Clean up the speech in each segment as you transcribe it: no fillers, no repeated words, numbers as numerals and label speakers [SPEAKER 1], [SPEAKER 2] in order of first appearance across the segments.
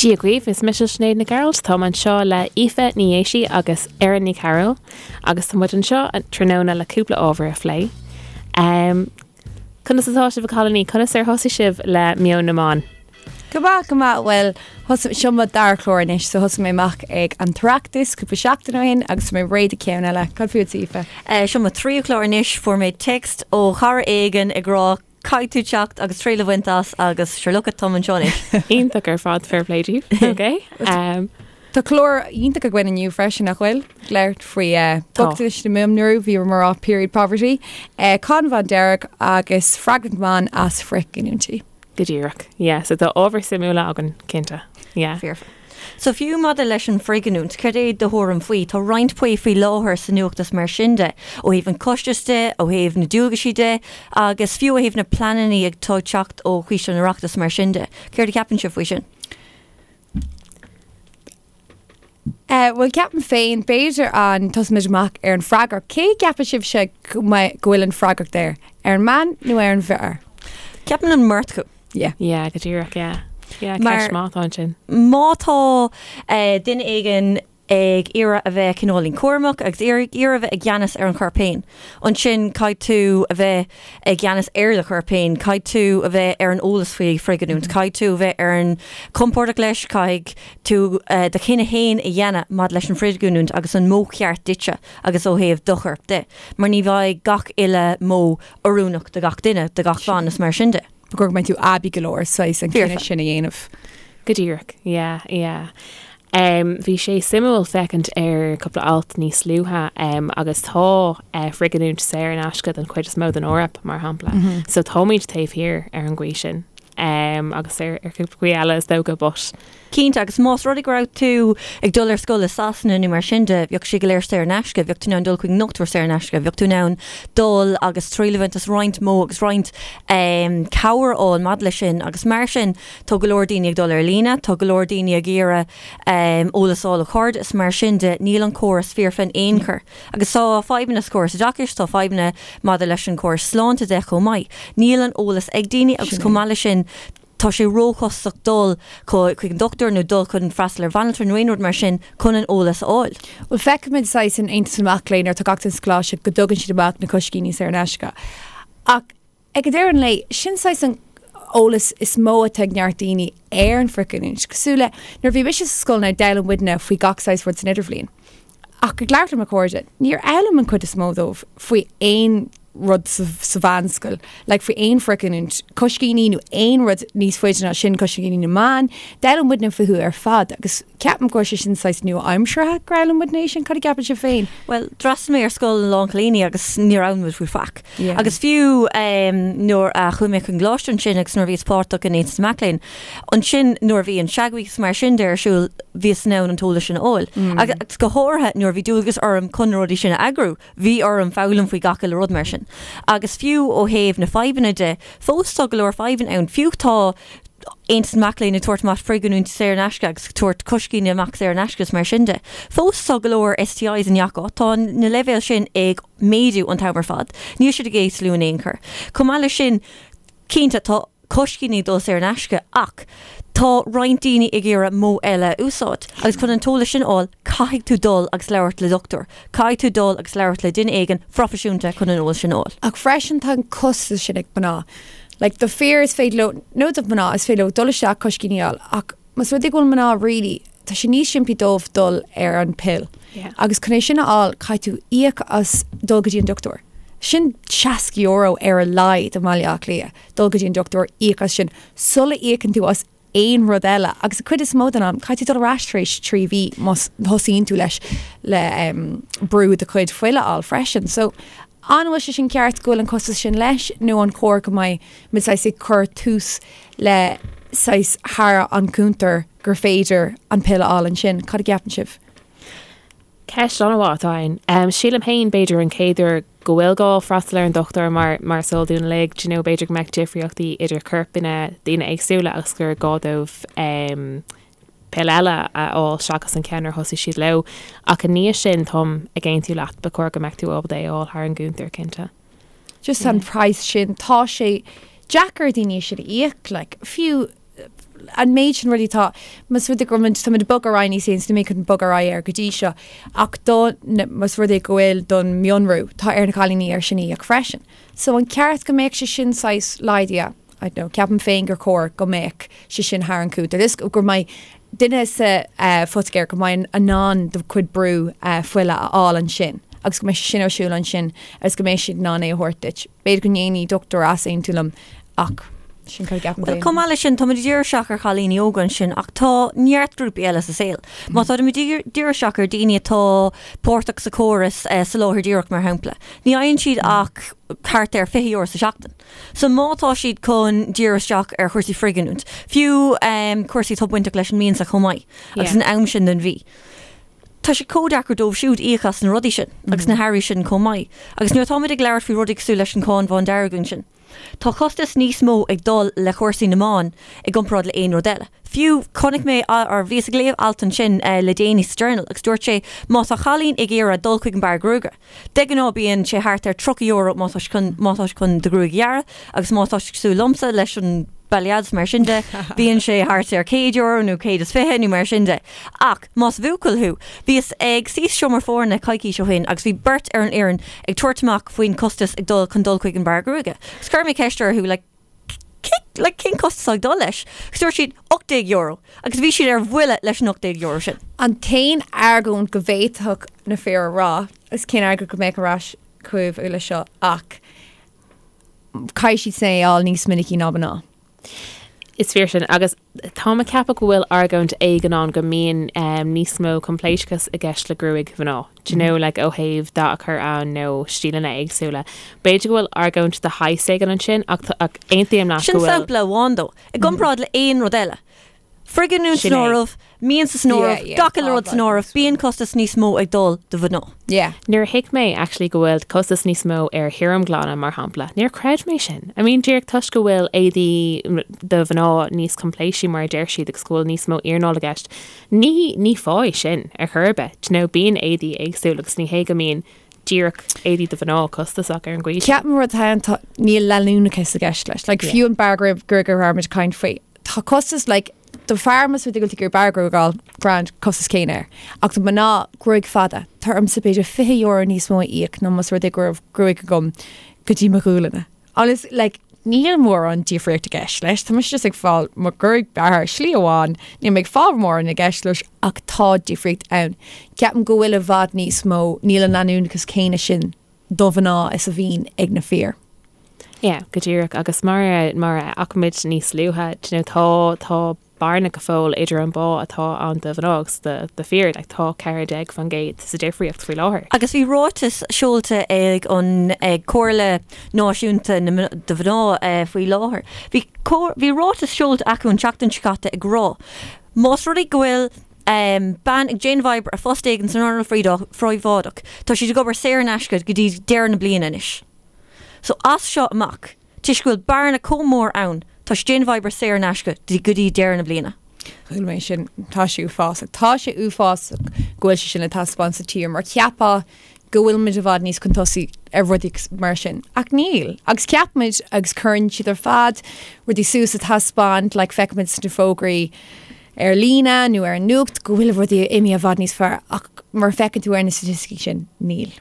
[SPEAKER 1] Dia dhaoibh, is mise Sinéad Nic Gearailt, táim anseo le Aoife Ní Dhéisigh agus Erin Ní Chearúil agus tá muid anseo tráthnóna le cúpla ábhar a phlé. Um, conas atá sibh a chailíní? Conas ar thosaigh sibh le Meon na mBan?
[SPEAKER 2] Go maith, go maith. Bhuel, thosaigh, seo mo dara clár anois, so thosaigh mé amach ag an tOireachtas cúpla seachtain ó shin agus tá mé réidh do ceann eile. Cad fútsa, Aoife?
[SPEAKER 3] Eh, seo mo tríú clár anois, fuair mé text ó chara éigin ag rá caithfidh tú teacht agus triail a bhaint as agus sure look it, táim anseo anois.
[SPEAKER 1] Iontach ar fad, fair play daoibh. Ok.
[SPEAKER 2] Um, Tá clár iontach againn inniu freisin nach bhfuil? Labhairt faoi eh, bochtanais na mban, bhí mar rá period poverty, eh, Cáin Bhandearg agus freagracht ban as frithghiniúintí.
[SPEAKER 1] Go díreach. Yeah, so tá ábhar suimiúla againn, cinnte. Yeah.
[SPEAKER 3] Fíor. So fiú maidir leis an frithghiniúint, cad é do thuairim faoi? Tá roinnt plé faoi láthair sa nuacht is mar sin de, ó thaobh an costais de, ó thaobh na dualgaisí de, agus fiú ó thaobh na pleananna atá ag teacht ó Choiste an Oireachtais mar sin de. Céard a cheapann sibh faoi sin?
[SPEAKER 2] Eh, bhuel, ceapaim féin, b'fhéidir an tosóimid amach ar an freagracht. Cé gceapann sibhse go mbeidh- go bhfuil an freagracht air? Ar an mbean nó ar an bhfear?
[SPEAKER 3] Ceapaim an mbeirt acu.
[SPEAKER 2] Yeah.
[SPEAKER 1] Yeah, go díreach, yeah. Yeah,
[SPEAKER 3] Mar-
[SPEAKER 1] ceist maith atá ansin.
[SPEAKER 3] Má tá eh, duine éigin ag iarraidh a bheith cineáilín cúramach agus iarraidh iarraidh a bheith i gceannas ar an chorp féin, ansin caithfidh tú a bheith i gceannas ar do chorp féin, caithfidh tú a bheith ar an eolas faoi frithghiniúint, caithfidh tú a bheith ar an compordach leis, caithfidh tú do chinneadh féin a dhéanamh maidir leis an frithghiniúint agus an modh ceart duitse agus ó thaobh do choirp de, mar ní bheidh gach uile modh oiriúnach do gach duine, do gach bean is mar sin de.
[SPEAKER 2] Ba chóir go mbeidh tú aibí go leor saghas an cinneadh sin a dhéanamh.
[SPEAKER 1] Go díreach, yeah, yeah. Um, bhí sé suimiúil féachaint ar cúpla alt níos luaithe um, agus tá uh, frithghiniúint saor in aisce don chuid is mó den Eoraip, mar shampla. Mm -hmm. So táimid taobh thiar ar an gcaoi sin. Um, agus ar, ar cúpla caoi eile is dócha, but
[SPEAKER 3] Cinnte, agus más rud é go raibh tú ag dul ar scoil i Sasana nó mar sin de, bheadh sé go léir saor in aisce, bheadh tú in ann dul chuig an ndochtúir saor in aisce, bheadh tú in ann dul agus triail a bhaint as roinnt modh agus roinnt cabhair a fháil maidir leis sin agus mar sin tá go leor daoine ag dul ar líne, tá go leor daoine ag iarraidh eolas a fháil ó chairde is mar sin de, níl an córas foirfe in aon chor. Agus tá fadhbanna sa chóras oideachais, tá fadhbanna maidir leis an chóras sláinte de chomh maith. Níl an eolas ag daoine agus chomh maith leis sin, tá sé róchostasach dul chuig an dochtúir nó dul chun freastal ar bhanaltra nó aon rud mar sin chun an eolas a fháil.
[SPEAKER 2] Bhuel, feicimid saghas in Aontas na Mac Léinn nuair atá gach duine sa choláiste go dtugann siad amach na coiscíní saor in aisce. Ach ag deireadh an lae, sin saghas an eolas is mó atá ag neart daoine ar an frithghiniúint. Cosúil le nuair a bhí mise sa scoil now d'fhoghlaim muidne faoi gach saghas rud san idirbhliain. Ach ag labhairt le mo chairde, níor fhoghlaim an chuid is mó dóibh faoi aon rud sa mheánscoil, like faoi aon frithghiniúint, coiscíní nó aon rud níos faide ná sin, coiscíní na mban, d'fhoghlaim muidne fúthu ar fad agus ceapaim go raibh sé sin saghas nua-aimseartha gur fhoghlaim muidne é sin, cad a gceapann sibh féin?
[SPEAKER 3] Bhuel, d'fhreastail mé ar scoil lán cailíní agus níor fhoghlaim muid faoi faic. Agus fiú nuair a chuaigh mé chun coláiste ansin agus nuair a bhíos páirteach in Aontas na Mac Léinn, ansin nuair a bhí an Shag Week is mar sin de ar siúl, bhíos in ann an t-eolas sin a fháil. Agus go háirithe nuair a bhí dualgas orm chun na rudaí sin a eagrú, bhí orm foghlaim faoi gach uile rud mar sin. Agus fiú ó thaobh na fadhbanna de, fós tá go leor fadhbanna ann. Fiú tá Aontas na Mac Léinn ag tabhairt amach frithghiniúint saor in aisce agus ag tabhairt coiscíní amach saor in aisce is mar sin de. Fós tá go leor STIs i ngach áit. Tá na leibhéil sin ag méadú an t-am ar fad. Níl siad ag ísliú in aon chor. Chomh maith leis sin, cinnte, tá coiscíní ag dul saor in aisce ach tá roinnt daoine ag iarraidh modh eile a úsáid agus chun an t-eolas sin a fháil, caithfidh tú dul agus labhairt le dochtúir. Caithfidh tú dul agus labhairt le duine éigin phroifisiúnta chun an eolas sin a fháil.
[SPEAKER 2] Ach freisin tá an costas sin ag mná. Like do fir is féidir leo, nó do mhná, is féidir leo dul isteach coiscíní a fháil ach más rud é go bhfuil mná really, tá sé níos simplí dóibh dul ar an pill.
[SPEAKER 1] Yeah.
[SPEAKER 2] Agus chun é sin a fháil caithfidh tú íoc as dul go dtí an dochtúir. Sin €60 ar a laghad i mBaile Átha Cliath, dul go dtí an dochtúir, íoc as sin, sula íocann tú as aon rud eile. Agus an chuid is mó den am, caithfidh tú dul ar ais tar éis 3 mhí má thosaíonn tú leis le brú do chuid fuile a fháil freisin. So, an bhfuil sé sin ceart go bhfuil an costas sin leis nó an chóir go mbeidh muid saghas ag cur tús le saghas thar an cuntar gur féidir an pill a fháil ansin? Cad a gceapann sibh?
[SPEAKER 1] Ceist an-mhaith atá ann. Sílim féin, b'fhéidir, an chéad uair go bhfuil gá freastal ar an dochtúir mar mar is eol dúinn uilig, do you know, b'fhéidir go mbeadh difríochtaí idir corpanna daoine éagsúla agus gur gá dóibh pill eile a fháil seachas an ceann ar thosaigh siad leo. Ach i ndiaidh sin, táim ag aontú leat, ba chóir go mbeadh tú ábalta é a fháil thar an gcuntar, cinnte.
[SPEAKER 2] Just an praghas sin, tá sé deacair daoine sin a íoc, like, fiú. An méid sin rudaí atá, más rud é go bhfuil muid, táimid ag bogadh ar aghaidh níos éasca, níl mé chun bogadh ar aghaidh air go dtí seo, ach do, más rud é go bhfuil don mhionrú, tá ar na cailíní air sin a íoc freisin. So an ceart go mbeadh sé sin saghas laghdaithe? I don't know, ceapaim féin gur chóir go mbeadh sé sin thar an cúntar. Is go mbeidh duine sa phoitigéir go mbeidh in ann do chuid brú fuile a fháil ansin agus go mbeidh sé sin ar siúl ansin agus go mbeidh siad in ann é a thabhairt duit. B'fhéidir go ndéanfaidh dochtúir easaontú liom ach sin cad a
[SPEAKER 3] cheapaim féin. Chomh maith leis sin, táimid ag díriú isteach ar chailíní óga ansin ach tá neart grúpaí eile sa saol. Má táimid ag díriú isteach ar daoine atá páirteach sa chóras soláthair díreach mar shampla, ní fhaigheann siad ach thart ar €20 sa seachtain. So má tá siad chun díriú isteach ar chúrsaí frithghiniúint, fiú cúrsaí atá bainteach leis an mbiansa chomh maith agus an am sin den mhí, tá sé chomh deacair dóibh siúd íoc as na rudaí sin agus na hearraí sin chomh maith. Agus nuair atáimid ag labhairt faoi rudaí cosúil leis an cháin bhándearg ansin, tá costas níos mó ag dul le cúrsaí na mban i gcomparáid le aon rud eile. Fiú, chonaic mé, or bhíos ag léamh alt ansin le déanaí sa Journal agus dúirt sé má tá cailín ag iarraidh dul chuig an beár gruaige, De ghnáth bíonn sé thart ar €30 má tá chun má tá chun do ghruaig a ghearradh agus má tá cosúil liomsa leis an balayage mar sin de, bíonn sé thart ar €100 nó 120 nó mar sin de. Ach más buachaill thú, bhíos ag suí sa seomra foirne coicís ó shin agus bhí beirt ar an fhoireann ag tabhairt amach faoin costas ag dul chun dul chuig an beár gruaige. Agus chuir mé ceist orthu like, like, cén costas ag dul leis? Agus dúirt siad €18 agus bhí siad ar bhuile leis an €18 sin.
[SPEAKER 2] An t-aon argóint go bhféadfadh na fir a rá, is cén argóint go mbeadh ar ais chugaibh leis seo ach caithfidh siad é a fháil níos minicí ná mná.
[SPEAKER 1] Is fíor sin agus táim ag ceapadh go bhfuil argóint éigin ann go mbíonn níos mó coimpléascachas i gceist le gruaig mhná. Do you know, like ó thaobh dath a chur ann nó stíleanna éagsúla. B'fhéidir go bhfuil argóint de shaghas éigin ansin ach ach aontaím leat
[SPEAKER 3] go bhfuil. Sin sampla amháin though. I gcomparáid le aon rud eile. Frithghiniúint san áireamh, miansa san áireamh, gach uile rud san áireamh, bíonn costas níos mó ag dul do mhná.
[SPEAKER 2] Yeah.
[SPEAKER 1] Nuair a thuig mé actually go bhfuil costas níos mó ar thirimghlanadh mar shampla, níor chreid mé sin. I mean díreach toisc go bhfuil éadaí do mhná níos coimpléisí mar a deir siad agus go bhfuil níos mó iarnáil i gceist, Ní, ní fáth é sin ar chor ar bith. Do you know, bíonn éadaí éagsúil agus ní hé go mbíonn díreach éadaí do mhná costasach ar an gcaoi
[SPEAKER 2] sin. Ceapaim rud atá ann, tá, níl leanúnachas i gceist leis. Like, fiú an beár gruaige a raibh muid ag caint faoi. Tá costas, like, do fear más rud é go bhfuil tú ag iarraidh beár gruaige a fháil, grand, costas céanna air. Ach do mná, gruaig fada, tá ormsa b'fhéidir €20 níos mó a íoc ná más rud é go raibh gruaig agam go dtí mo ghualainne. Agus like níl mórán difríocht i gceist leis, tá mise just ag fáil mo ghruaig bearrtha slí amháin, níl mé ag fáil mórán i gceist leis ach tá difríocht ann. Ceapaim go bhfuil i bhfad níos mó, níl an leanúnachas céanna sin do mhná is a bhíonn ag na fir.
[SPEAKER 1] Yeah, go díreach agus mar a mar a fhaca muid níos luaithe, do you know, tá tá bearna go fóill idir an bpá atá ann do mhná agus do fir, like tá 14% sa difríocht faoi láthair.
[SPEAKER 3] Agus bhí ráiteas seolta ag an ag Comhairle Náisiúnta na do Mhná faoi láthair. Bhí bhí ráiteas seolta acu an tseachtain seo caite ag rá más rud é go bhfuil bean ag déanamh oibre ar phost éigin san earnáil phríobháideach, tá siad ag obair saor in aisce go dtí deireadh na bliana anois. So as seo amach. Toisc go bhfuil bearna chomh mór ann, tá siad ag déanamh oibre saor in aisce go dtí deireadh na bliana.
[SPEAKER 2] Chuala mé sin. Tá sé uafásach. Tá sé uafásach go bhfuil sé sin le taispeáint sa tír mar cheapfá go bhfuil muid i bhfad níos chun tosaigh ar rudaí mar sin. Ach níl. Agus ceapaimid agus cuireann siad ar fad rudaí suas a taispeáint, like feicimid sna fógraí ar líne nó ar an nuacht go bhfuil rudaí imithe i bhfad níos fearr ach mar a feiceann tú ar na staitisticí sin, níl.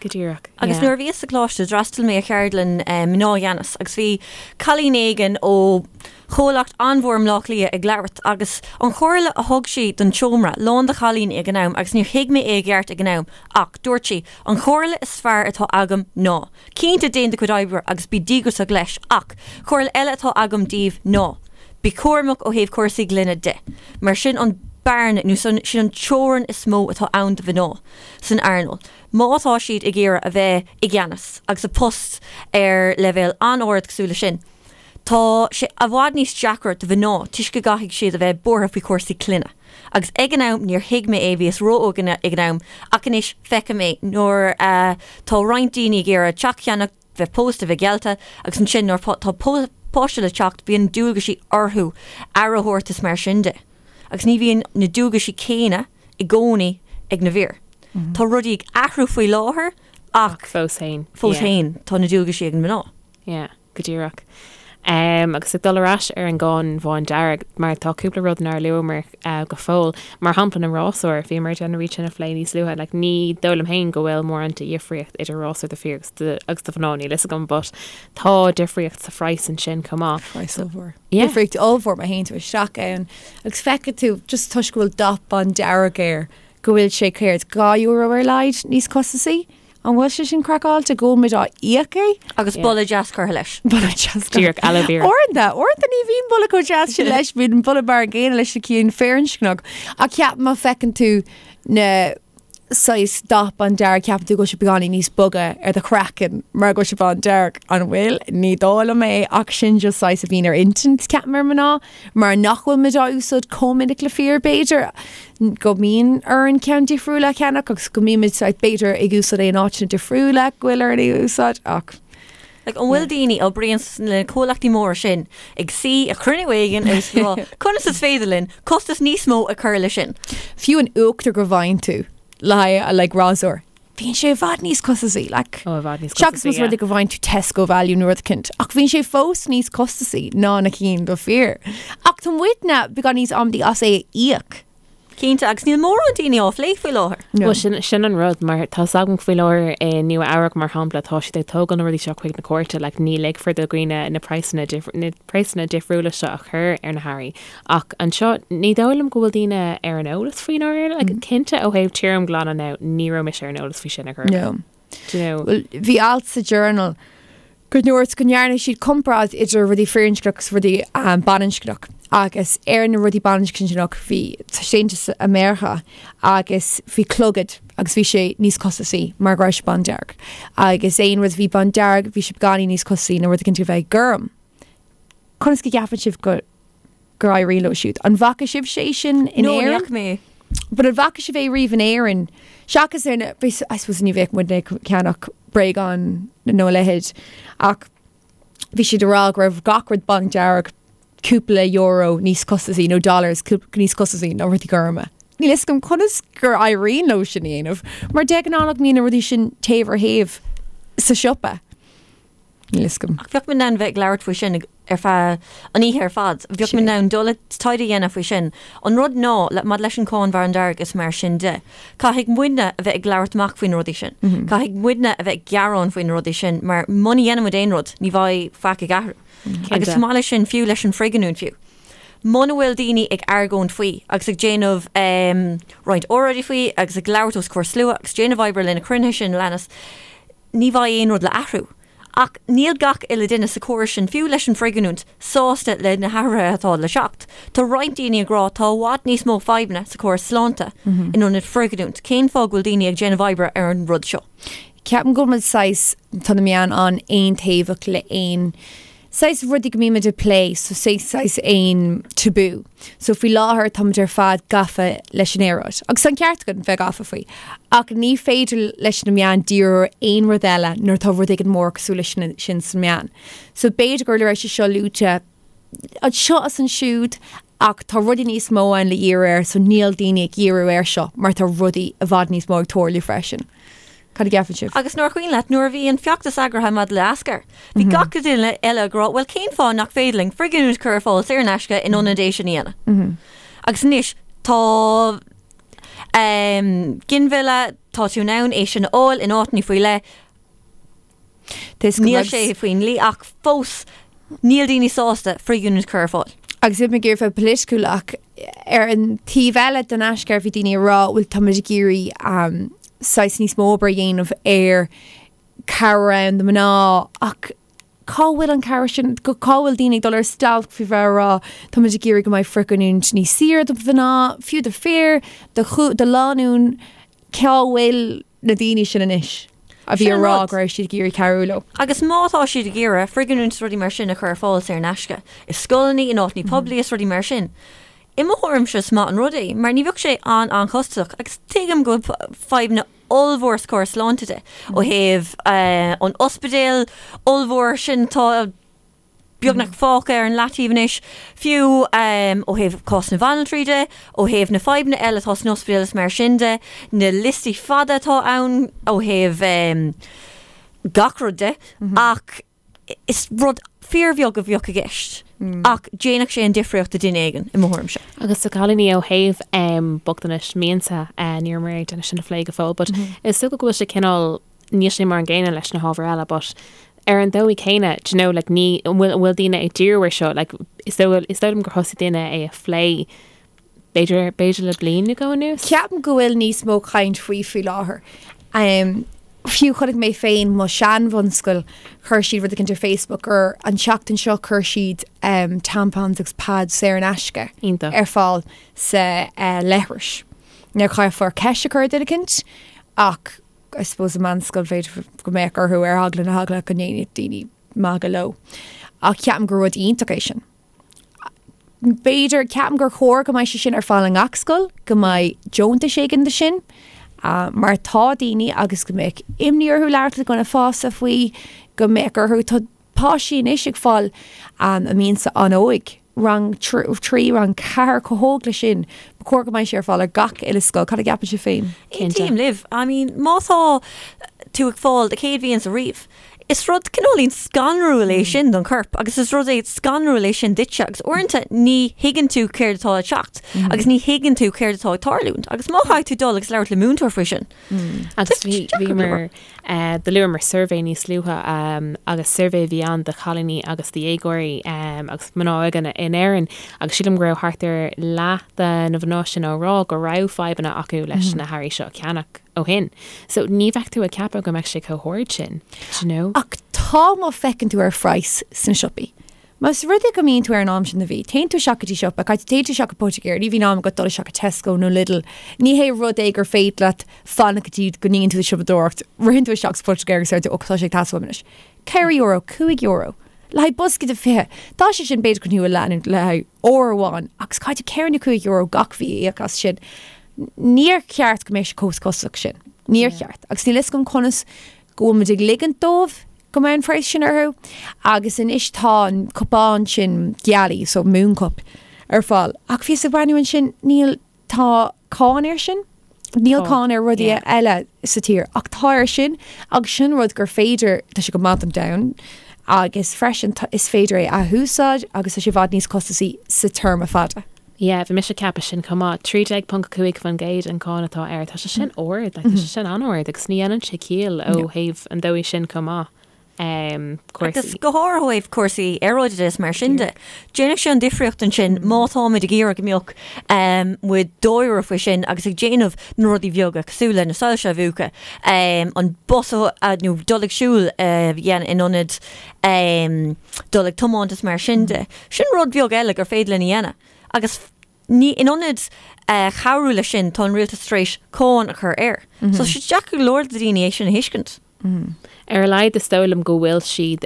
[SPEAKER 1] Go díreach.
[SPEAKER 3] Agus nuair a bhíos sa choláiste d'fhreastail mé ar cheardlann mná i gceannas agus bhí cailín éigin ó chomhlacht an-mhór i mBleá Cliath ag labhairt agus an chomhairle a thug sí don tseomra lán de chailíní ag an am agus níor thuig mé é i gceart ag an am ach dúirt sí an chomhairle is fearr atá agam ná cinnte déan do chuid oibre agus bí díograiseach leis ach comhairle eile atá agam daoibh ná bí cúramach ó thaobh cúrsaí clainne de mar sin an bearna nó sin an teorainn is mó atá ann do mhná. san earnáil, má tá siad ag iarraidh a bheith i gceannas agus i bpost ar leibhéal an-ard cosúil leis sin. Tá sé i bhfad níos deacra do mhná toisc go gcaithfidh siad a bheith buartha faoi chúrsaí clainne. Agus ag an am níor thuig mé é, bhíos ró-óg ag an am, ach anois feicim é nuair atá roinnt daoine ag iarraidh teach a cheannach, bheith pósta, bheith geallta agus ansin nuair atá páiste le teacht bíonn dualgaisí orthu aire a thabhairt is mar sin de. Agus ní bhíonn na dualgaisí céanna i gcónaí ag na bhfir. Tá rudaí ag athrú faoi láthair
[SPEAKER 1] ach fós féin
[SPEAKER 3] fós féin tá na dualgaisí ag na mná.
[SPEAKER 1] Yeah, go díreach. Agus ag dul ar ais ar an gcáin bhándearg, mar tá cúpla rud nár luamar go fóill, mar shampla na rásúir, bhíomar ag déanamh iad sin a phlé níos luaithe, like ní dóigh liom féin go bhfuil mórán de dhifríocht idir rásúr do fir agus do mhná, níl fhios agam, but tá difríocht sa phraghas ansin chomh maith.
[SPEAKER 2] Praghas ollmhór.
[SPEAKER 1] Yeah.
[SPEAKER 2] Difríocht ollmhór má théann tú isteach ann agus feicfidh tú, just toisc go bhfuil dath bándearg air, go bhfuil sé céard, €2 ar a laghad níos costasaí? An bhfuil sé sin craiceáilte go bhfuil muid á íoc é?
[SPEAKER 3] Agus boladh deas curtha leis.
[SPEAKER 2] Boladh deas.
[SPEAKER 1] Díreach aloe vera.
[SPEAKER 2] Uaireanta, uaireanta ní bhíonn boladh chomh deas sin leis, bíonn boladh mar an gcéanna leis na cinn firinscneach. Ach ceap má feiceann tú na saghas dath bándearg ceapann tú go bhfuil sé beagáinín níos boga ar do chraiceann mar go bhfuil sé bándearg. An bhfuil? Ní dóigh liom é ach sin just saghas a bhíonn ar intinn ceapaim ar mná. Mar nach bhfuil muid á úsáid chomh minic le fir, b'fhéidir, go mbíonn orainn ceann difriúil a cheannach agus go mbímid saghas, b'fhéidir, ag úsáid é in áiteanna difriúla go bhfuil orainn é a úsáid ach.
[SPEAKER 3] Like, an bhfuil daoine a oibríonn sna comhlachtaí móra sin ag suí ag cruinniú éigin agus ag rá conas is féidir linn costas níos mó a chur leis sin?
[SPEAKER 2] Fiú an uachtar go bhfaigheann tú le haghaidh like rásúr, bíonn sé i bhfad níos costasaí, like.
[SPEAKER 1] Ó, i bhfad níos
[SPEAKER 2] Seachas
[SPEAKER 1] costasaí,
[SPEAKER 2] más rud é go bhfaigheann tú Tesco Value nó rud eicínt, ach bíonn sé fós níos costasaí ná na cinn do fir. Ach tá muidne beagán níos amaidí as é a íoc.
[SPEAKER 3] Cinnte, agus níl mórán daoine á phlé faoi láthair.
[SPEAKER 2] No.
[SPEAKER 1] Bhuel, sin, sin an rud, mar tá 's agam faoi láthair i Nua Eabhrac, mar shampla, tá siad ag tógáil na rudaí seo chuig na cúirte, like, ní ligfear do dhaoine na praghsanna, na praghsanna difriúla seo a chur ar na hearraí. Ach anseo, ní dóigh liom go bhfuil daoine ar an eolas faoi ndáiríre. Like, cinnte ó thaobh tirimghlanadh now, ní raibh mise ar an eolas faoi sin ar chor ar bith.
[SPEAKER 2] No.
[SPEAKER 1] Do you know?
[SPEAKER 2] Bhuel, bhí alt sa Journal go ndúirt go ndearna siad comparáid idir rudaí firinscneach agus rudaí baininscneach agus ar na rudaí baininscneach bhí taispeántas i Meiriceá agus bhí clogad agus bhí sé níos costasaí mar go raibh sé bándearg agus aon rud a bhí bándearg bhí sé beagáinín níos costasaí ná rud éicint a bheith gorm. Conas go gceapann sibh go gur éirigh leo siúd? An bhfaca sibh sé sin in
[SPEAKER 3] No, ní
[SPEAKER 2] Éirinn?
[SPEAKER 3] fhaca mé.
[SPEAKER 2] But an bhfaca sibh é riamh in Éirinn? Seachas ar na, I suppose ní bheadh muidne ag ceannach bréagáin nó a leithéid ach bhí siad ag rá go raibh gach rud bándearg cúpla euro níos costasaí nó dollars níos costasaí ná rudaí gorma. Níl fhios agam conas gur éiríonn leo sin a dhéanamh mar de ghnáth nach mbíonn na rudaí sin taobh ar thaobh sa siopa. Níl fhios agam.
[SPEAKER 3] Ach bheadh mé in ann bheith ag labhairt faoi sin ar feadh an oíche ar fad. Bheadh mé in ann dul ag taighde a dhéanamh faoi sin. An rud ná, le, maidir leis an cáin bhándearg is mar sin de, caithfidh muidne a bheith ag labhairt amach faoi na rudaí sin. Caithfidh muidne a bheith ag gearán faoi na rudaí sin mar muna dhéanann muid aon rud, ní bheidh faic ag athrú. Agus chomh maith leis sin, fiú leis an frithghiniúint fiú. Muna bhfuil daoine ag argóint faoi agus ag déanamh roinnt óráidí faoi agus ag labhairt os comhair slua agus déanamh oibre le na cruinnithe sin a leanas, ní bheidh aon rud le athrú. Ach níl gach uile duine sa chóras sin, fiú leis an bhfrithghiniúint, sásta le na hathruithe atá le teacht. Tá roinnt daoine ag rá tá i bhfad níos mó fadhbanna sa chóras sláinte in ionad frithghiniúint. Cén fáth go bhfuil daoine ag déanamh oibre ar an rud seo?
[SPEAKER 2] Ceapaim go bhfuil muid saghas, tá na meáin an-aontaobhach le aon saghas rudaí go mbímid ag plé, so say saghas aon tabú. So faoi láthair táimid ar fad gafa leis an aeráid. Agus tá an ceart againn bheith gafa faoi. Ach ní féidir leis na meáin díriú ar aon rud eile nuair atá rud éigin mór cosúil leis sin sna meáin. So b'fhéidir go raibh sé seo luaite anseo is ansiúd ach tá rudaí níos mó ann le dhíriú air so níl daoine ag dhíriú air seo mar tá rudaí i bhfad níos mó ag tarlú freisin. Cad a gceapann sibh?
[SPEAKER 3] Agus nuair cuimhin leat, nuair a bhí an feachtas eagraithe maidir le Aischur, bhí gach duine eile ag rá, bhuel cén fáth nach féidir linn frithghiniúint a chur ar fáil saor in aisce in ionad é sin a dhéanamh? Agus anois tá ginmhilleadh, tá tú in ann é sin a fháil in áiteanna faoi leith, Níl sé faoin dlí ach fós níl daoine sásta frithghiniúint a chur ar fáil.
[SPEAKER 2] Agus níl mé ag iarraidh bheith polaitiúil ach ar an taobh eile den Aischur bhí daoine ag rá bhuel táimid ag iarraidh saghas níos mó obair a dhéanamh ar cabhair ann do mná ach cá bhfuil an cabhair sin, cá bhfuil daoine ag dul ar stailc faoi bheith ag rá táimid ag iarraidh go mbeidh frithghiniúint níos saoire do mhná, fiú do fir, do do lánúin, cá bhfuil na daoine sin anois a bhí
[SPEAKER 3] Sin
[SPEAKER 2] ag
[SPEAKER 3] an
[SPEAKER 2] rá
[SPEAKER 3] rud.
[SPEAKER 2] go raibh siad ag iarraidh cabhrú leo.
[SPEAKER 3] Agus má tá siad ag iarraidh frithghiniúint is rudaí mar sin a chur ar fáil saor in aisce i scoileanna, in áiteanna poiblí is rudaí mar sin, i mo thuairimse is maith an rud é mar ní bheadh sé an-an-chostasach agus tuigim go bhfuil fadhbanna ollmhór sa chóras sláinte de ó thaobh an ospidéal ollmhór sin atá beagnach fágtha ar an leataobh anois, fiú ó thaobh cás na bhanaltraí de, ó thaobh na fadhbanna eile atá san ospidéal is mar sin de, na liostaí fada atá ann ó thaobh gach rud de, ach is rud fíorbheag a bheadh i gceist ach déanfadh sé an difríocht do duine éigin, i mo thuairimse.
[SPEAKER 1] Agus do chailíní ó thaobh bochtanais mianta, ní rabhamar ag déanamh sin a phlé go fóill, but is dócha go bhfuil sé cineál, níl sé mar an gcéanna leis na hábhair eile, but ar an dóigh céanna, do you know, like ní, an bhfuil, an bhfuil daoine ag díriú ar seo, like is dóigh, is dóigh liom gur thosaigh daoine é a phlé b'fhéidir, b'fhéidir le bliain nó dhó anuas.
[SPEAKER 2] Ceapaim go bhfuil níos mó caint faoi faoi láthair. Fiú chonaic mé féin mo shean-bhunscoil, chuir siad rud éicint ar Facebook gur an tseachtain seo chuir siad tampons agus pads saor in aisce
[SPEAKER 1] Iontach.
[SPEAKER 2] ar fáil sa leithris. Now caithfear ceist a chur ar duine éicint ach I suppose i meánscoil b'fhéidir go mbeadh orthu ar eagla na heagla go ndéanfadh daoine magadh leo. Ach ceapaim gur rud iontach é sin. B'fhéidir, ceapaim gur chóir go mbeidh sé sin ar fáil i ngach scoil, go mbeidh deontais éigin do sin, mar tá daoine agus go mbeadh imní orthu labhairt le dhuine fásta faoi, go mbeadh orthu, tá páistí anois ag fáil a mianta an-óig, rang 3, rang 4, chomh hóg le sin. Ba chóir go mbeidh sé ar fáil ar gach uile scoil. Cad a gceapann sibh féin?
[SPEAKER 3] Aontaím libh. I mean, má tá tú ag fáil do chéad mhianta riamh, Is rud cineáilín scanrúil é sin don chorp agus is rud é scanrúil é sin duitse agus uaireanta ní thuigeann tú céard atá ag teacht agus ní thuigeann tú céard atá ag tarlúint agus má chaithfidh tú dul agus labhairt le múinteoir faoi sin.
[SPEAKER 1] Agus bhí bhíomar do luamar suirbhé níos luaithe agus suirbhé a bhí ann do chailíní agus do dhéagóirí agus mná óga in Éirinn agus sílim go raibh thart ar leath de na mná sin á rá go raibh fadhbanna acu leis na hearraí seo a cheannach. ó shin. So ní bheadh tú ag ceapadh go mbeadh sé chomh hard sin, do you know?
[SPEAKER 2] Ach tá má feiceann tú ar phraghas sna siopaí. Más rud é go mbíonn tú ar an am sin de mhí, téann tú isteach go dtí siopa, caithfidh téann tú isteach go poitigéir, ní bhíonn am agat dul isteach go Tesco nó Lidl. Ní hé rud é gur féidir leat fanacht go dtí go ndéanann tú do siopadóireacht, ritheann tú isteach sa phoitigéir agus deir tú, ó tá sé ag teastáil uaim anois. €4, €5. Le haghaidh bosca de 20. Tá sé sin b'fhéidir chun thú a leanúint le haghaidh uair amháin agus caithfidh tú €4 nó €5 gach mhí a íoc as sin. Níor cheart go mbeadh sé chomh costasach sin. Níor cheart. Agus níl fhios agam conas go bhfuil muid ag ligint dóibh go mbeidh an praghas sin orthu. Agus anois tá an cupán sin gealaí, so moon cup, ar fáil. Ach bhíos ag breathnú ansin, níl, tá cáin air sin. Níl cáin ar rudaí eile sa tír ach tá air sin agus sin rud gur féidir, tá sé go maith don domhan agus freisin is féidir é a athúsáid agus tá sé i bhfad níos costasaí sa téarma fada.
[SPEAKER 1] Yeah, bhí mise ag ceapadh sin chomh maith. 13.5% an cáin atá air. Tá sé sin ard, like, tá sé sin an-ard agus ní dhéanann sé ciall ó thaobh an dóigh sin chomh maith.
[SPEAKER 3] Um, cúrsaí. Agus go háirithe ó thaobh cúrsaí aeráide de is mar sin de. Déanfaidh sé an difríocht ansin má táimid ag iarraidh go mbeadh um, muid dáiríre faoi sin agus ag déanamh na rudaí bheaga cosúil le na soilse a mhúchadh, um, an bus a, nó dul ag siúl uh, dhéanamh in ionad um, dul ag tiomáint is mar sin de. Sin rud beag eile gur féidir linn a dhéanamh. Agus ní, in ionad cabhrú leis sin, tá an rialtas tar éis cáin a chur air. So tá sé deacair go leor do dhaoine é sin a thuiscint.
[SPEAKER 1] Ar a laghad is dóigh liom go bhfuil siad,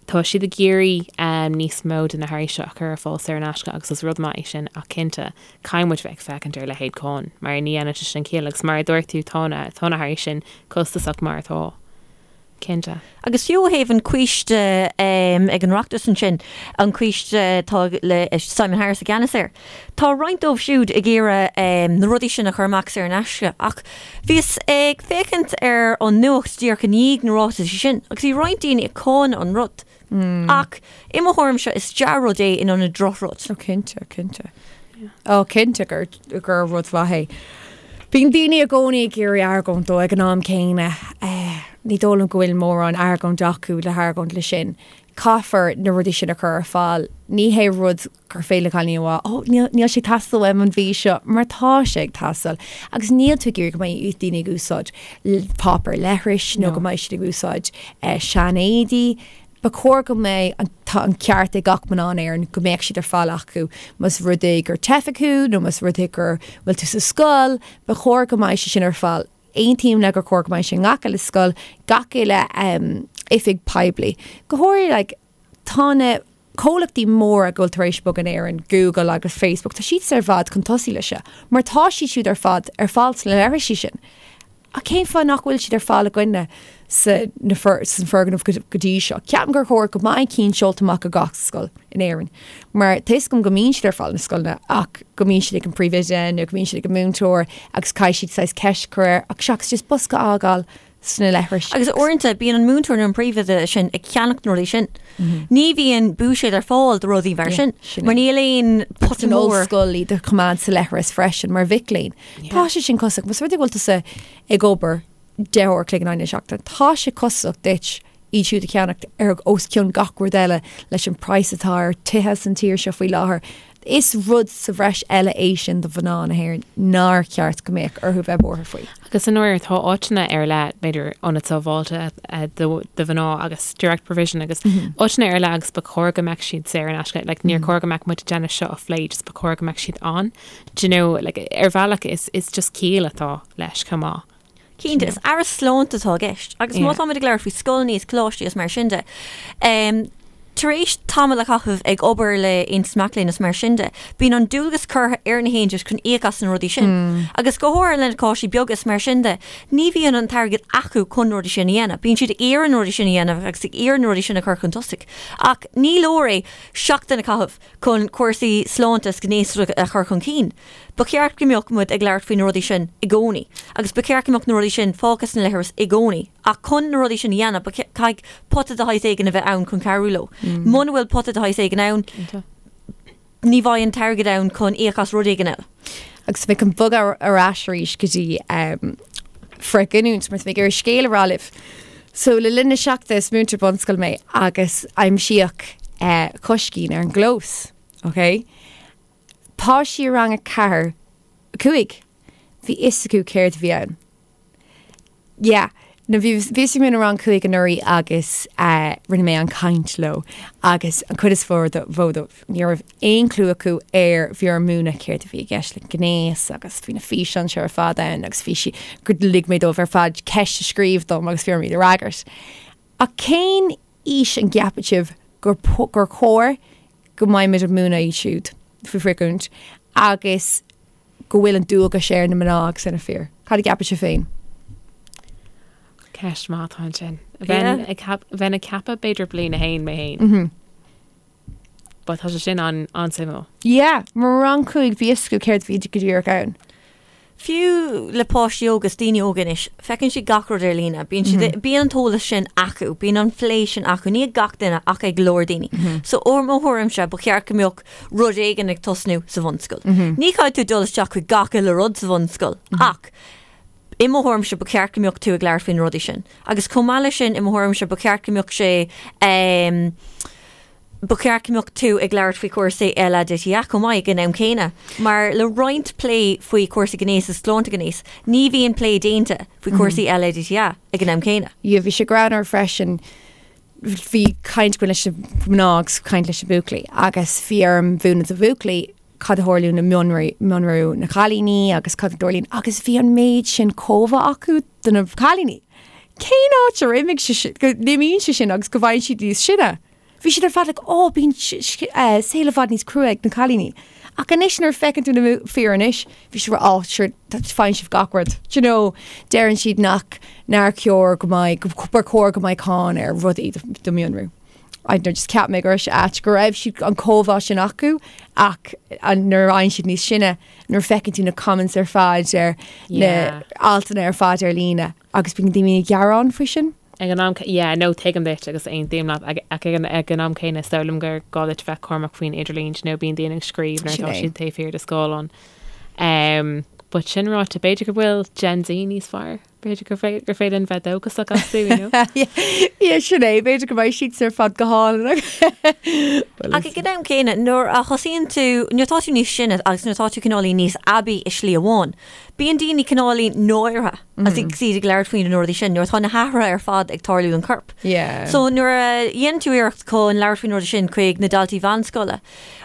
[SPEAKER 1] tá siad ag iarraidh níos mó de na hearraí seo a chur ar fáil saor in aisce agus is rud maith é sin ach cinnte, caithfidh muid bheith ag féachaint ar leithéid cáin mar ní dhéanann sé sin ciall agus mar a dúirt tú tá na, tá na hearraí sin costasach mar atá. Cinnte.
[SPEAKER 3] Agus fiú ó thaobh an coiste ag an Oireachtas ansin, an coiste atá le Simon Harris i gceannas air, tá roinnt dóibh siúd ag iarraidh na rudaí sin a chur amach saor in aisce ach bhíos ag féachaint ar an nuacht díreach i ndiaidh na ráitisí sin agus bhí roinnt daoine ag cáineadh an rud. Ach i mo thuairimse is dea-rud é in ionad drochrud.
[SPEAKER 2] Ó cinnte, cinnte. Ó cinnte gur gur rud mhaith é. Bíonn daoine i gcónaí ag iarraidh argóint dó ag an am céanna. Ní dóigh liom go bhfuil mórán argóint acu le hargóint le sin. Caithfear na rudaí sin a chur ar fáil. Ní hé rud gur féidir le cailíní a rá, Ó, níl, níl sé ag teastáil uaim an mhí seo, mar tá sé ag teastáil. Agus níl tú ag iarraidh go mbeidh daoine ag úsáid páipéar leithris nó go mbeidh siad ag úsáid seanéadaí. Ba chóir go mbeidh an, tá an ceart ag gach mná in Éirinn go mbeadh siad ar fáil acu. Más rud é gur teifeach thú nó más rud é gur bhfuil tú sa scoil, ba chóir go mbeidh sé sin ar fáil. Aontaím le gur chóir go mbeidh sé i ngach uile scoil, gach uile oifig poiblí. Go háirithe like, tá na comhlachtaí móra go bhfuil tar éis bogadh in Éirinn, Google agus Facebook, tá siad ar fad chun tosaigh leis seo, mar tá siad siúd ar fad ar fáil sna leithrisí sin. Ach cén fáth nach bhfuil siad ar fáil againne sa na san foirgneamh go dtí seo? Ceapaim gur chóir go mbeidh cinn seolta amach go gach scoil in Éirinn, mar tá fhios agam go mbíonn siad ar fáil na scoileanna ach go mbíonn siad ag an príomhoide nó go mbíonn siad ag an múinteoir agus caithfidh siad saghas ceist a chur air ach seachas just bosca a fhágáil. sna leithris.
[SPEAKER 3] Agus uaireanta bíonn an múinteoir nó an príomhoide sin ag ceannacht na rudaí sin. Ní bhíonn buiséad ar fáil do rudaí mar sin, mar níl aon
[SPEAKER 2] pota mór. An ollscoil iad a choimeád sa leithreas freisin mar mhic léinn. Tá sé sin costasach. Más rud é go bhfuil tusa ag obair 10 uair a chloig in aghaidh na seachtaine, tá sé costasach duit iad siúd a cheannacht ar os cionn gach rud eile leis an praghas atá ar tithe san tír seo faoi láthair. Is rud sa bhreis eile é sin do mhná na hÉireann nár cheart go mbeadh orthu bheith buartha faoi.
[SPEAKER 1] Agus i ndáiríre tá áiteanna ar leith, b'fhéidir ionad sábháilte do mhná agus direct provision agus áiteanna ar leith agus ba chóir go mbeadh siad saor in aisce. Like, níor chóir go mbeadh muid ag déanamh seo a phlé, just ba chóir go mbeadh siad ann. Do you know, like, ar bhealach is, is just ciall atá leis chomh maith.
[SPEAKER 3] Cinnte, is aire sláinte atá i gceist. Agus má táimid ag labhairt faoi scoileanna is coláistí is mar sin de, tar éis tamall a chaitheamh ag obair le Aontas Mac Léinn is mar sin de, bíonn an dualgas curtha ar na haontais chun íoc as na rudaí sin. Agus go háirithe le na coláistí beaga is mar sin de, ní bhíonn an t-airgead acu chun na rudaí sin a dhéanamh. Bíonn siad ag iarraidh na rudaí sin a dhéanamh agus ag iarraidh na rudaí sin a chur chun tosaigh. Ach ní leor é seachtain a chaitheamh chun cúrsaí sláinte is gnéasachta a chur chun cinn. Ba cheart go mbeadh muid ag labhairt faoi na rudaí sin i gcónaí agus ba cheart go mbeadh na rudaí sin fágtha sna leithris i gcónaí ach chun na rudaí sin a dhéanamh ba caithfidh pota de shaghas éigin a bheith ann chun cabhrú leo. Muna bhfuil pota de shaghas éigin ann, ní bheidh an t-airgead ann chun íoc as rud éigin eile.
[SPEAKER 2] Agus mé chun bogadh ar ais arís go dtí frithghiniúint mar tá mé ag iarraidh scéal a rá libh. So le linn na seachtaine is múinteoir bunscoile mé agus aimsíodh coiscín ar an gclós, ok? Páistí i rang a 4, 5, bhí fhios acu céard a bhí ann. Yeah. No, bhí bhíos ag múineadh rang 5 anuraidh agus eh, rinne mé an caint leo agus an chuid is mó mhó dóibh ní raibh aon clue acu ar bhí orm múineadh céard a bhí i gceist le gnéas agus bhí na físeáin seo ar fad ann agus bhí sí gur lig mé dóibh ar fad ceist a scríobh dom agus bhí orm iad a fhreagairt. Ach cén aois an gceapann sibh gur gur chóir go mbeidh muid ag múineadh iad siúd faoi frithghiniúint agus go bhfuil an dualgas ar na mná agus ar na fir. Cad a gceapann sibh féin?
[SPEAKER 1] Ceist maith atá ansin. Bheinn ag bheinn ag ceapadh b'fhéidir bliain a haon mé féin. But tá sé sin an-suimiúil.
[SPEAKER 2] Yeah, mar rang 5 bhí fhios acu céard a bhí go díreach ann.
[SPEAKER 3] Fiú le páistí óga is daoine óga anois, feiceann siad gach rud ar líne. Bíonn siad, bíonn an t-eolas sin acu, bíonn an plé sin acu, ní ag gach duine ach ag go leor daoine. So ó mo thuairimse, ba cheart go mbeadh rud éigin ag tosnú sa bhunscoil. Ní chaithfidh tú dul isteach chuig gach uile rud sa bhunscoil ach i mo thuairimse ba cheart go mbeadh tú ag labhairt faoi na rudaí sin. Agus chomh maith leis sin, i mo thuairimse ba cheart go mbeadh sé ehm, Ba cheart go mbeadh tú ag labhairt faoi chúrsaí LADTA chomh maith ag an am céanna, mar le roinnt plé faoi chúrsaí gnéis is sláinte gnéis, ní bhíonn plé déanta faoi chúrsaí LADTA ag an am céanna.
[SPEAKER 2] Yeah, bhí sé greannmhar freisin, bhí caint againn leis na mná agus caint leis na buachaillí agus bhí orm mhúineadh do bhuachaillí cad a tharlaíonn i mionrú na cailíní agus cad a dtarlaíonn agus bhí an méid sin comhbhá acu do na cailíní. Cén áit ar imigh sé sin, go n-imíonn sé sin agus go bhfaigheann siad níos sine? Bhí siad ar fad like, oh, bíonn saol i bhfad níos crua ag na cailíní. Ach anois nuair a feiceann tú na fir anois, bhí siad oh, sure, faigheann sibh gach rud. Do you know, deireann siad nach nár chóir go mbeidh, gur chóir go mbeidh cáin ar rudaí do mhionrú. I don't know, just cheap mé go raibh sé ait go raibh siad an comhbhá sin acu ach nuair a fhaigheann siad níos sine, nuair a feiceann tú na comments ar fad ar na altanna ar fad ar líne agus bíonn daoine ag gearán faoi sin.
[SPEAKER 1] Ag an am, yeah, no, tuigim duit agus aontaím leat, ach ag an am céanna is dóigh liom gur gá duit bheith cúramach faoin idirlíon, you know, bíonn daoine ag scríobh nuair atá siad taobh thiar de scáileán. Um, but sin ráite, b'fhéidir go bhfuil Gen Z níos fearr, b'fhéidir gur gur féidir linn bheith dóchasach astu, you know.
[SPEAKER 2] Yeah, sin é, b'fhéidir go mbeidh siad ar fad go hálainn.
[SPEAKER 3] Ach ag an am céanna, nuair a thosaíonn tú, nuair atá tú níos sine agus nuair atá tú cineáilín níos aibí i slí amháin, bíonn daoine cineáilín náirithe. Agus iad ag labhairt faoi na rudaí sin, nuair atá na hathruithe ar fad ag tarlú don chorp. So nuair a dhéanann tú iarracht chun labhairt faoi na rudaí sin chuig na daltaí mheánscoile,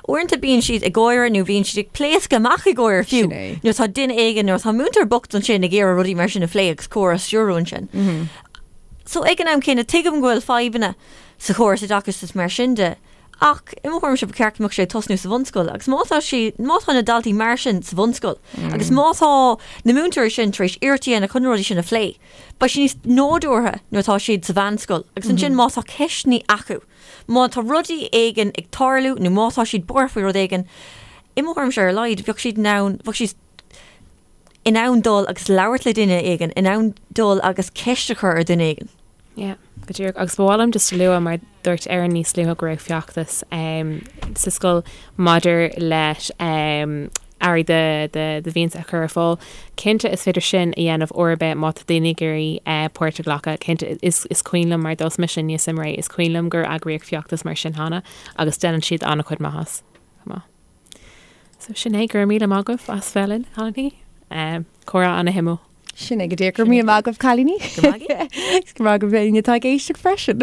[SPEAKER 3] uaireanta bíonn siad ag gáire nó bíonn siad ag pléascadh amach ag gáire fiú. Nuair atá duine éigin, nuair atá múinteoir bocht ansin ag iarraidh rudaí mar sin a phlé agus comhrá a stiúradh ansin. So ag an am céanna, tuigim go bhfuil fadhbanna sa chóras oideachais is mar sin de, Ach, i mo thuairimse, ba cheart go mbeadh sé ag tosnú sa bhunscoil agus má tá sí, má tá na daltaí mar sin sa bhunscoil agus má tá na múinteoirí sin tar éis iarracht a dhéanamh chun na rudaí sin a phlé, beidh sé níos nádúrtha nuair atá siad sa mheánscoil agus ansin má tá ceisteanna acu, má tá rudaí éigin ag tarlú nó má tá siad buartha faoi rud éigin, i mo thuairimse ar a laghad, bheadh siad in ann, bheadh siad. in ann dul agus labhairt le duine éigin, in ann dul agus ceist a chur ar dhuine éigin.
[SPEAKER 1] Yeah, go díreach. Agus ba mhaith liom just a lua mar dúirt Erin níos luaithe go raibh feachtas sa scoil maidir leis earraí do mhianta a chur ar fáil. Cinnte is féidir sin a dhéanamh uair ar bith má tá daoine ag iarraidh páirt a ghlacadh. Cinnte is is cuimhin liom mar d'fhás mise aníos i mBré, is cuimhin liom gur eagraíodh feachtas mar sin cheana agus déanann siad an-chuid maitheas chomh maith. So sin é, go raibh míle maith agaibh as bheith linn, a chailíní. Comhrá ana-shuimiúil.
[SPEAKER 2] Sin é go díreach. Go raibh míle maith agaibh, cailíní. Go raibh maith agaibh éinne atá ag éisteacht freisin.